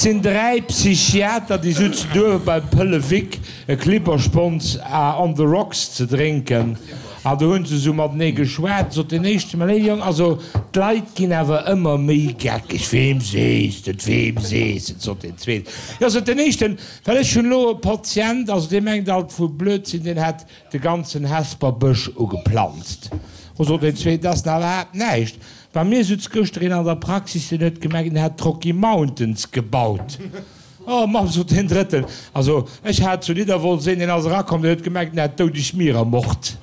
Et sinn 3 Psychiater, déi sutzen duerwe beim Pëlle Vic e Klipperspons on the rocks ze drénken. An do hunn se esou matenee geschwat. Sot deen éischte, Mä léiwe Jong, also d'Leit ginn awer ëmmer méi geckeg. Weem sees de et, weem sees de et? sot deen zweeten. Jo, sot deen éischten, well ech hunn elo e Patient, also dee mengt alt vu Blödsinn, deen hätt de ganzen Hesper Bësch ugeplanzt. O, sot deen zweeten, dat ass nach iwwerhaapt näischt. Bei mir sutz gëschter een an der Praxis, deen huet gemengt, en hätt d'Rocky Mountains gebaut. Oh Mamm, sot deen Drëtten, also ech hat zu Nidderwolz een, deen ass erakomm, deen huet gemengt, en hätt d'doudeg Mier ermort.